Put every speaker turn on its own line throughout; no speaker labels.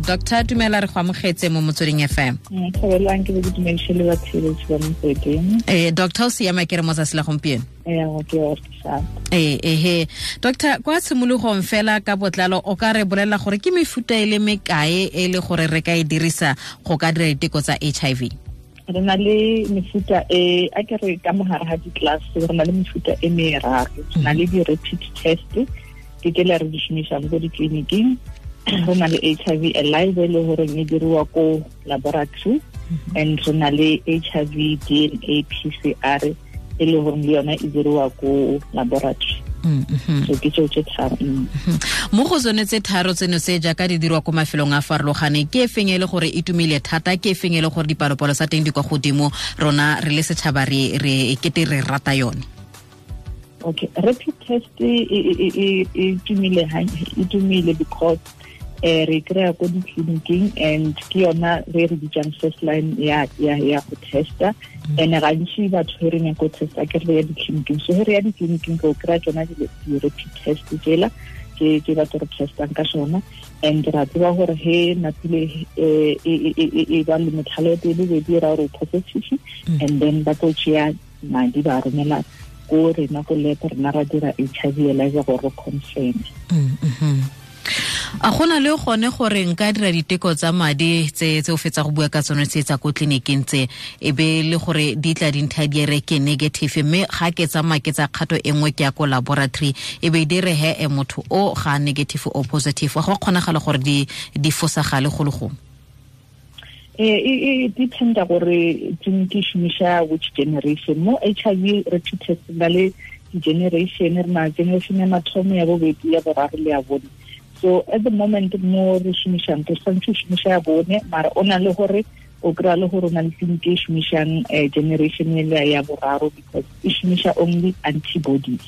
Doctor, dumela, re go amogetse mo Motsweding FM.
Thabelang, ke be ke dumediše le batheeletši ba Motsweding.
Doctor, o siama ke re mo tsatsi la gompieno?
Ee, ke o
Ee, ehe. Doctor, kwa tshimologong fela ka botlalo, o ka re bolelela gore ke mefuta e le mekae e le gore re ka e dirisa go ka dira diteko tsa HIV?
Re na le mefuta e, a ke re ka mogare ga di-class, re na le mefuta e meraro. Re na le di-rapid test, ke tsela re di šomišang ko ditleliniking. Re na le HIV ELISA, e le goreng e diriwa ko laboratory, and re na le HIV DNA PCR, e le goreng le yona e diriwa ko laboratory. So ke tseo tse tharo.
Mo go tsone tse tharo tseno tse, jaaka di dirwa ko mafelong a farologaneng, ke e feng e le gore e tumile thata, ke e feng e le gore dipalopalo tsa teng di kwa godimo, rona re le setšhaba re e kete re rata yone?
Okay, rapid test e tumile, e tumile because re kry-a ko ditleliniking and ke yona re bitsang first line ya go testa. And gantsi batho he re nyako testa, ke re ya ditleliniking. So he re ya ditleliniking, re o kry-a tsona di-rapid test tsela ke batho re testang ka sona. And ra tseba gore he napile e ba le motlhalo ya pele, be di ra gore positive, and then ba tlo tšea madi, ba romela ko rena ko lab, rena ra dira HIV ELISA gore re confirm.
A gona le gone gore nka dira diteko tsa madi tse o fetsa go bua ka tsone tse tsa ko tleliniking tse, e be le gore di tla dintha di re ke negative, mme ga ke tsamaya ke tsa kgato e nngwe, ke ya ko laboratory, e be di re he e motho o ga negative o positive? Go kgonagala gore di fosagale go le gongwe?
E dependa gore tleliniki e šomiša which generation. Mo HIV rapid test na le di-generation, re na generation ya mathomo, ya bobedi, ya boraro le ya bone. So at the moment mo re šomišang, re swantse o šomiša ya bone, mara o na le gore o kry-a le gore o na le tleliniki e šomišang generation ele ya boraro, because e šomiša only antibodies.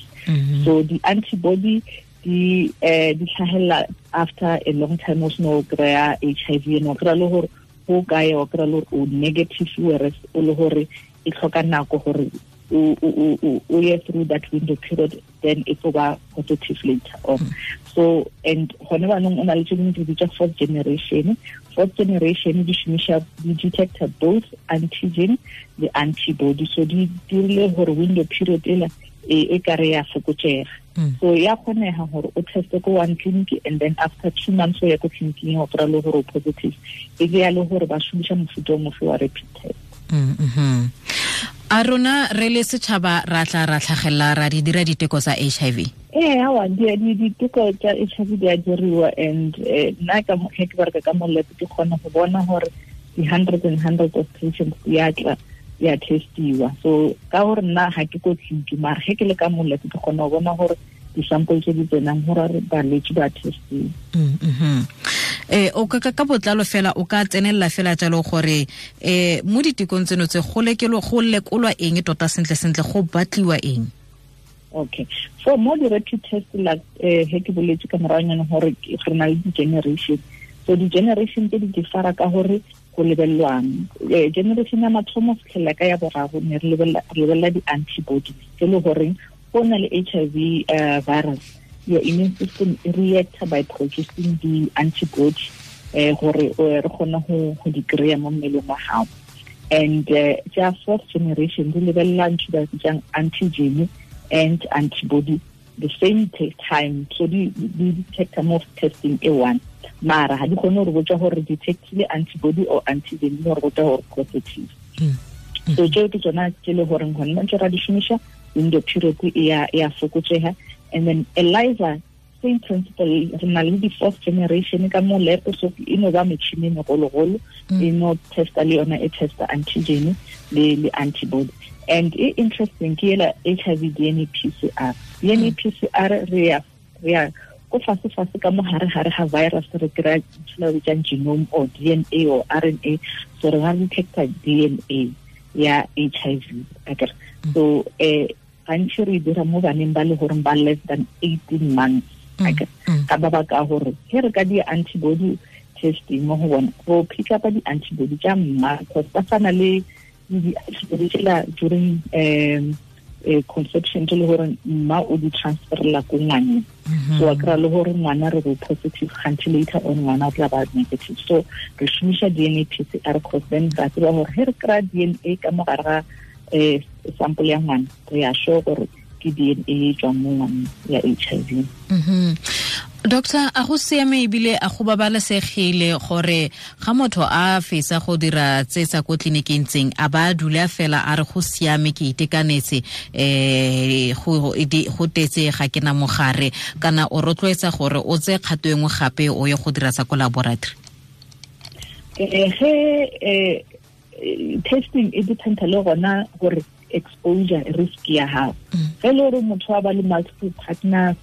So di-antibody di tlhagelela after a long time o seno kry-a HIV, and o kry-a le gore go kae, o kry-a le gore o negative, whereas o le gore e tlhoka nako gore o ye through that window period, then e tlo ba positive later on. So and gone banong o na le tse dingwe di bitsa fourth generation. Fourth generation di šomiša, di detecta both antigen le antibody, so di dirile gore window period ela e kare ya fokotsega. So ya kgonega gore o teste ko one clinic and then after 2 months o ya ko tleliniking, o kry-a le gore o positive. E ke ya le gore ba šomiša mofuta o mofe wa rapid test.
A rona re le setšhaba ra tla ra tlhagelela ra di dira diteko tsa HIV?
Ee, awa, diteko tsa HIV di a diriwa, and nna ka ge ke bereka ka mo lab, ke kgona go bona gore di-hundreds and hundreds of patients di a tla, di a testiwa. So ka gore nna ga ke ko tleliniki, mara ge ke le ka mo lab, ke kgona go bona gore di-sample tse di tsenang, gore balwetse ba testiwa.
O ka botlalo fela, o ka tsenelela fela jalo gore mo ditekong tseno tse go go lekolwa eng tota, sentle sentle go batliwa eng?
Okay, so mo di-rapid test la, he ke boletse ka moragonyana gore re na le di-generation. So di-generation tse di differa ka gore go lebelelwang. Generation ya mathomo fitlhelela ka ya boraro, ne re lebelela di-antibodies, tse le goreng go na le HIV virus, your immune system e reacta by producing di-antibody gore re kgone go di kry-a mo mmeleng wa gago. And tsa fourth generation di lebelela ntho ba bitsang antigen and antibody the same time, so di detecta mo testing e one, mara ga di kgone gore botsa gore detectile antibody or antigen, di gore botsa gore positive. So tseo ke tsona tse le goreng gone ntse ra di šomiša, window period e ya fokotsega. And then ELISA, same principle, re na le di-fourth generation ka mo lab, so e no ba metšhini e megologolo, e no testa le yona, e testa antigen le antibody. And e interesting ke ela HIV DNA PCR. DNA PCR, re ya ko fase fase ka mo gare gare ga virus, re kry-a ntho ba bitsang genome or DNA or RNA. So re ga detecta DNA ya HIV akere. So gantši re dira mo baneng ba le goreng ba less than 18 months akere, ka ba baka gore he re ka di antibody testing mo go bona, go pick up di-antibody tša mma, because ba tshwana le di-antibody tsela during conception tse le gore mma o di transferela ko ngwaneng. So a kry-a le gore ngwana re bo positive, kganthe later on ngwana o tla ba negative. So re šomiša DNA PCR, cause then ra tseba gore ge re kry-a DNA ka mo gare ga sample ya ngwana, re ya sure gore ke DNA e tswang mo ngwaneng ya HIV.
Doctor, a go siame ebile a go babalesegile gore ga motho a fetsa go dira tse tsa ko tleliniking tseng a ba dula fela a re go siame ke itekanetse, go tetse ga ke na mogare, kana o rotloetsa gore o tse kgato e nngwe gape o ye go dira tsa ko laboratory?
Ge testing e dependa le gona gore exposure risk ya gago. Ge le gore motho a ba le multiple partners,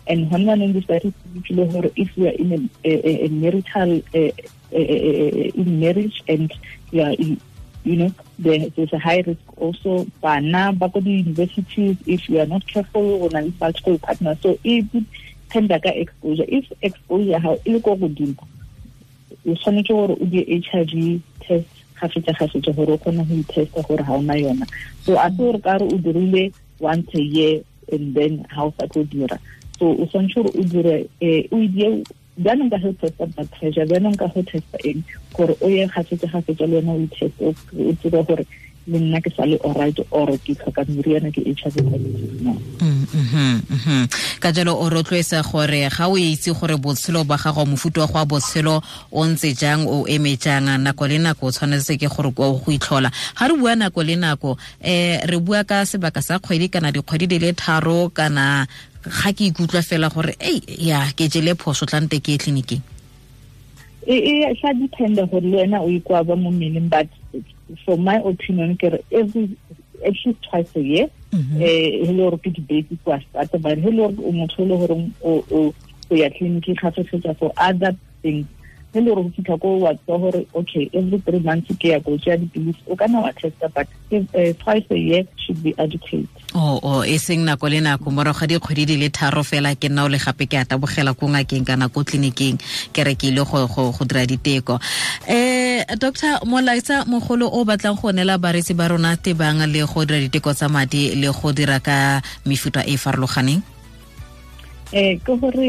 and hona neng di gore if you are in a marital in marriage and you are in, you know, there's a high risk also. Bana ba ko di-universities, if you are not careful, o na le multiple partners. So e dependa ka exposure. If exposure ha e le ko godimo, o tshwanetse gore o die HIV test gafetsa gore o kgone go itesta gore ha ona yona. So a se gore ka re o dirile once a year and then ha o sa tlo dira. So o tshwanetse gore o dire o die jaanong ka go testa blood pressure, jaanong ka go testa eng, gore o ye gafetsa le wena o iteste, o tsebe gore le nna ke sa le alright or ke tlhoka meriana ke HIV positive no.
Ka jalo o rotloetsa gore ga o itse gore botshelo ba gago, mofuta wa go wa botshelo o ntse jang, o eme jang, nako le nako o tshwanetse ke gore o go itlhola. Ga re bua nako le nako, re bua ka sebaka sa kgwedi kana dikgwedi di le 3, kana ga ke ikutlwa fela gore ei ya ke jele phoso tlante ke tleliniking?
E sa dependa gore le wena o ikwa ba mo mmeleng, but for my opinion ke re every at least twice a year. E le gore ke di-basic wa start, but he le gore o motho le gore o ya tleliniking gafetsa for other things, he le gore go fitlha ko wa tseba gore okay every 3 months ke ya go tšea dipilisi, o kana wa testa, but twice a year should be adequate.
Oh, e seng nako le nako morago ga dikgwedi di le 3 fela ke nna o le gape ke a tabogela ko ngakeng kana ko tleliniking ke re ke ile go dira diteko. Doctor, molaetsa mogolo o batlang go neela bareetsi ba rona tebang le go dira diteko tsa madi le go dira ka mefuta e farologaneng?
Ke gore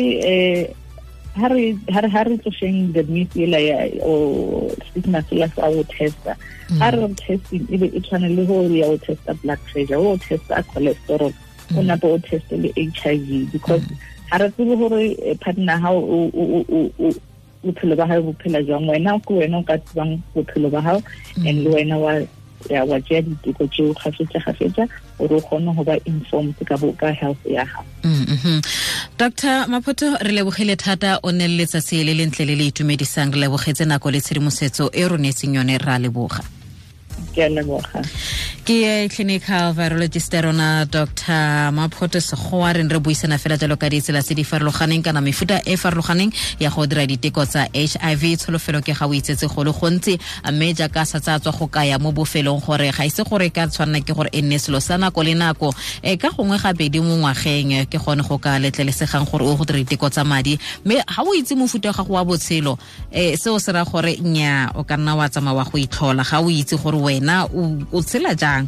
ha re tlošeng the myth ela ya o stigma sela sa go testa. Ha re testing e be e tshwane le gore ya o testa blood pressure, o testa cholesterol, o nape o teste le HIV, because ha re tsebe gore partner ha o bophelo ba hao bo phela jwang, wena ke wena o ka tsebang bophelo ba hao, and le wena wa tšea diteko tseo gafetsa gore o kgone go ba informed ka health ya gago.
Dr. Maphoto, re lebogile thata, o ne le letsatsi le lentle le le itumedisang, re lebogetse nako le tshedimosetso e re neetseng yone, ra leboga.
Ke a leboga.
Ke clinical virologist rona Dr. Maphoto Sekgowa, re re buisana fela jalo ka ditsela tse di farologaneng kana mefuta e farologaneng ya go dira diteko tsa HIV. Tsholofelo ke ga o itsetse go le gontsi, mme jaaka sa tsa tswa go kaya mo bofelong gore ga ise gore ka tshwanna ke gore e nne selo sa nako le nako, ka gongwe gabedi mo ngwageng ke gone go ka letlelesegang gore o go dira diteko tsa madi, mme ga o itse mofuta wa gago wa botshelo, seo se ra gore nya o ka nna wa tsamaya wa go itlhola ga o itse gore wena o tshela jang.